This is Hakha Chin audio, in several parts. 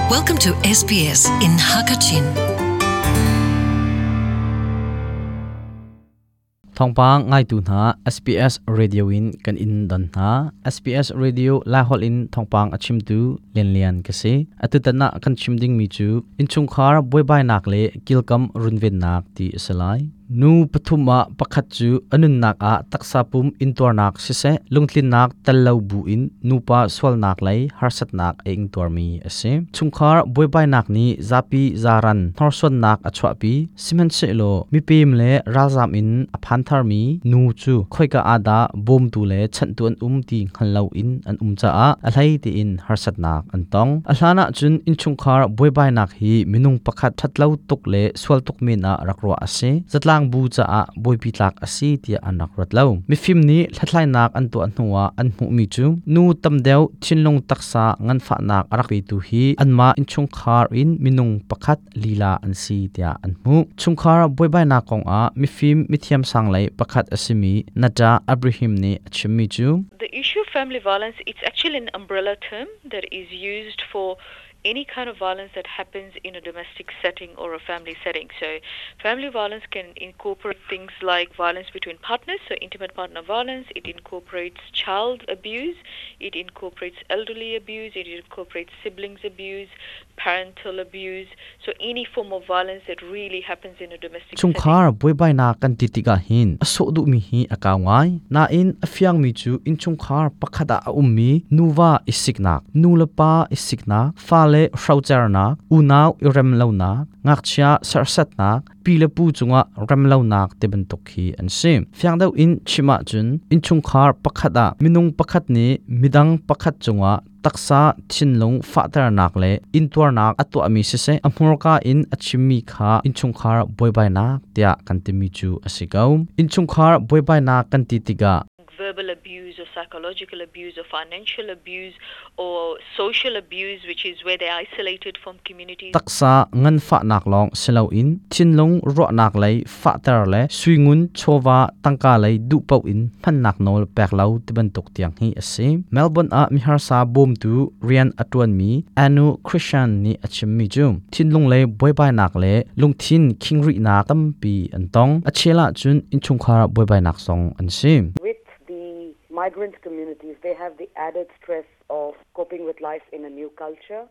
Welcome to SBS in Hakachin. Thawngpang ngaitu hna SBS Radio in kan in don hna. SBS Radio Lahol in thawngpang a chimtu Lian Lian ka si. Atutan ah kan chim ding mi cu innchungkhar buaibainak le kilkam runvennak ti a si lai. Nu pathum ah pakhat cu a nunnak ah taksa pum intuarnak siseh lungtlinnak tel lo buin nupa sualnak lei harsatnak a ingtuarmi a si. Chungkhar buaibainak nih zapi zaran hnorsuannak a chuahpi. Sihmanhsehlaw mipem le ralzam in a phan tharmi nu cu khoika ah dah bawmtu le chanhtu an um ti hngal loin an um caah a hlei tiin harsatnak an tong. A hlan ahcun innchungkhar buaibainak hi minung pakhat ṭhatlo tuk le sual tuk men ah rak ruah a si. Zatlang bu caah buaipi tlak a si tiah an rak ruat lo. Mifim nih hlathlainak an tuah hnuah an hmuhmi cu nu tam deuh thinlung taksa nganfahnak a rak petu hi anmah innchungkhar in minung pakhat lila an si tiah an hmuh. Chungkhar buaibainak kongah mifim mithiam sang lei pakhat a simi Nata Abraham nih a chimmi cu The issue of family violence, it's actually an umbrella term that is used for any kind of violence that happens in a domestic setting or a family setting. So family violence can incorporate things like violence between partners, so intimate partner violence. It incorporates child abuse. It incorporates elderly abuse. It incorporates siblings abuse, parental abuse. So any form of violence that really happens in a domestic setting. Chungkhar buaibainak kan ti tikah hin a sawh duhmi hi a kau ngai. Nain a fiangmi cu innchungkhar pakhat ah a ummi nuva i siknak, nu le pa i siknak, fale hrocernak, unau i remlonak, ngakchia serhsatnak, pi le pu cungah remlonak ti bantuk hi an si. Fiang deuh in chim ahcun innchungkhar pakhat ah minung pakhat nih midang pakhat cungah taksa thinlung fahternak le intuarnak a tuahmi siseh a hmurka in a chimmi kha innchungkhar buaibainak tiah kan timi cu a si ko. Innchungkhar buaibainak kan ti tikah verbal abuse or psychological abuse or financial abuse or social abuse, which is where they're isolated from communities. Taksa nganfahnak lawng si loin thinlung ruahnak lei fahter le suingun chawva tangka lei duh paoh in hmannak nawl pek lo ti bantuk tiang hi a si. Melbourne ah miharsa bawmtu rian a ṭuanmi Anu Christian nih a chimmi cu thinlung lei buaibainak le lungthin khingrihnak tampi an tong. A chel ahcun innchungkhar buaibainak zong an si. With the migrant communities, they have the added stress of coping with life in a new culture.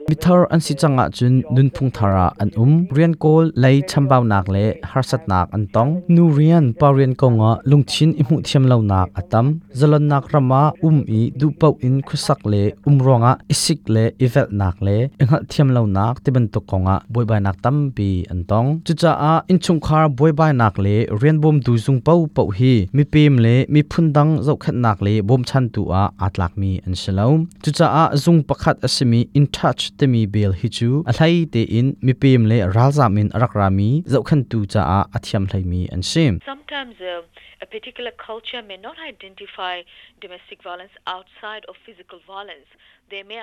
Mithar an si cang ahcun nunphung thar ah an um. Rian kawl lei chambaunak le harsatnak an tong. Nu rian, pa rian kongah lungthin i hmuh thiam lonak a tam. Zalonnak ram ah um i duhpaoh in khuasak le um ruangah i sik le i velhnak le i hngalhthiam lonak tibantuk kongah buaibainak tampi an tong. Cucaah innchungkhar buaibainak le rian bawmtu zung paohpaoh hi mipem le miphun dang zohkhenhnak le bawmchantu ah aa tlakmi an si lo. Cucaah zung pakhat a simi In Touch timi bel hi cu a hlei tein mipem le ralzam in a rak rami zohkhenhtu caah a thiam hleimi an si. Sometimes a particular culture may not identify domestic violence outside of physical violence.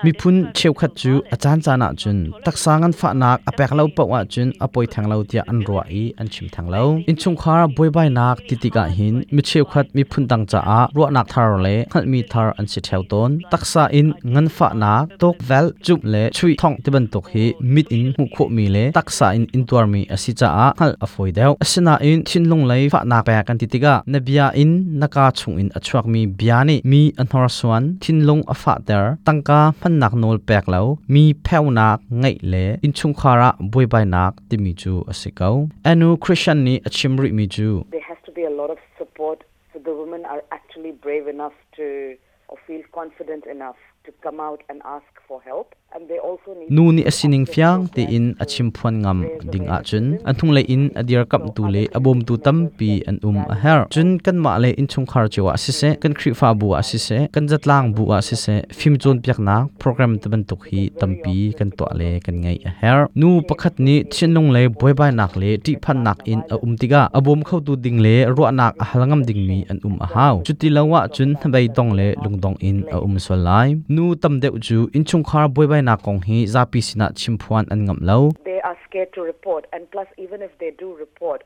Miphun cheukhat cu a caancaan ahcun taksa nganfahnak a pek lo paoh ahcun a poi theng lo tiah an ruah i an chim theng lo. Innchungkhar buaibainak ti tikah hin mi cheukhat miphun dang caah ruahnak thar le hngalhmi thar an si ṭheo tawn. Taksa in nganfahnak, tukvelh, cumh le chuih thongh tibantuk hi mit in hmuh khawhmi le taksa in intuarmi a si caah hngalh a fawi deuh. Asinain thinlung lei fahnak pek kan ti tikah na bia in na kaa chungin a chuakmi bia nih mi a hnorsuan, thinlung a fahter, tangka hmannak nawl pek lo, mi pheunak ngeih le innchungkhar ah buaibainak timi cu a si ko. Anu Christian nih a chim rihmi cu There has to be a lot of support so the women are actually brave enough to or feel confident enough to come out and ask for help. And they also need Nu nih a sining fiang tein a chimphuan ngam ding ahcun an hnunglei in a dirkamhtu le a bawmtu tampi an um a herh. Cun kanmah le innchungkhar cio ah siseh, kan Khrihfabu ah siseh, kan zatlang bu ah siseh, fim cawnpiaknak program ti bantuk hi tampi kan tuah le kan ngeih a herh. Nu pakhat nih thinlung lei buaibainak le ṭihphannak in a um tikah a bawm khotu ding le ruahnak a hal ngam dingmi an um a hau. Cuti lo ahcun hnabei dong le lungdong in a um sual lai. Nu tam deuh cu innchungkhar buaibainak kong hi zapi sinah chimphuan an ngamh lo. They are scared to report and plus even if they do report,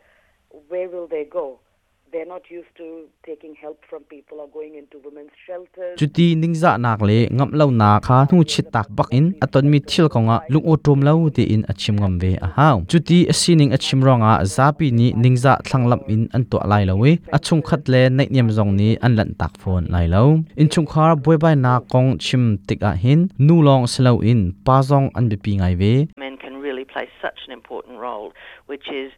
where will they go? They're not used to taking help from people or going into women's shelters. Cuti ningzahnak le ngamh lonak kha hnu chittak bak in a tonmi thil kongah lungawṭawm lo tein a chim ngam ve a hau. Cuti a sining a chim ruangah zapi nih ningzah thlanglamh in an tuah lai lo i a chungkhat le naihniam zong nih an lanhtak fawn lai lo. Innchungkhar buaibainak kong chim tikah hin nu lawng si loin pa zong an biapi ngai ve. Men can really play such an important role, which is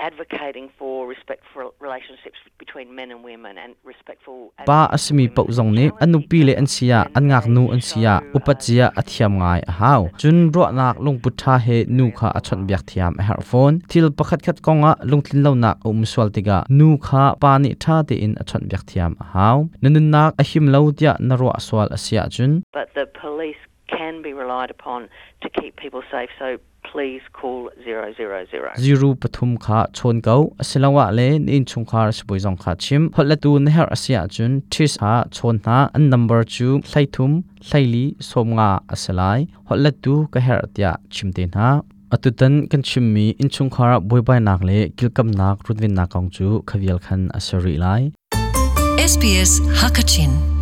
advocating for respectful relationships between men and women and respectful Pa a simi paoh zong nih an nupi le an si ah an ngaknu an si ah upat zia a thiam ngai a hau. Cun ruahnak lungput ṭha he nu kha a chawnhbiak thiam a herh fawn. Thil pakhatkhat kongah lungtlin lonak a um sual tikah nu kha pa nih ṭha tein a chawnhbiak thiam a hau. Na nunnak a him lo tiah na ruah sual a si ahcun but the police can be relied upon to keep people safe so please call 000. Ziru pathum kha chawn ko asiloah le na innchungkhar sibawi zong kha chim. Holhletu na herh a si ahcun TIS kha chawn hna. An number cu 33 hleili 50 a si lai. Holhlettu ka herh tiah chim te hna. Atutan kan chimmi innchungkhar buaibainak le kilkamnak runvennak kong cu khavial khan a si rih lai. SBS Hakachin.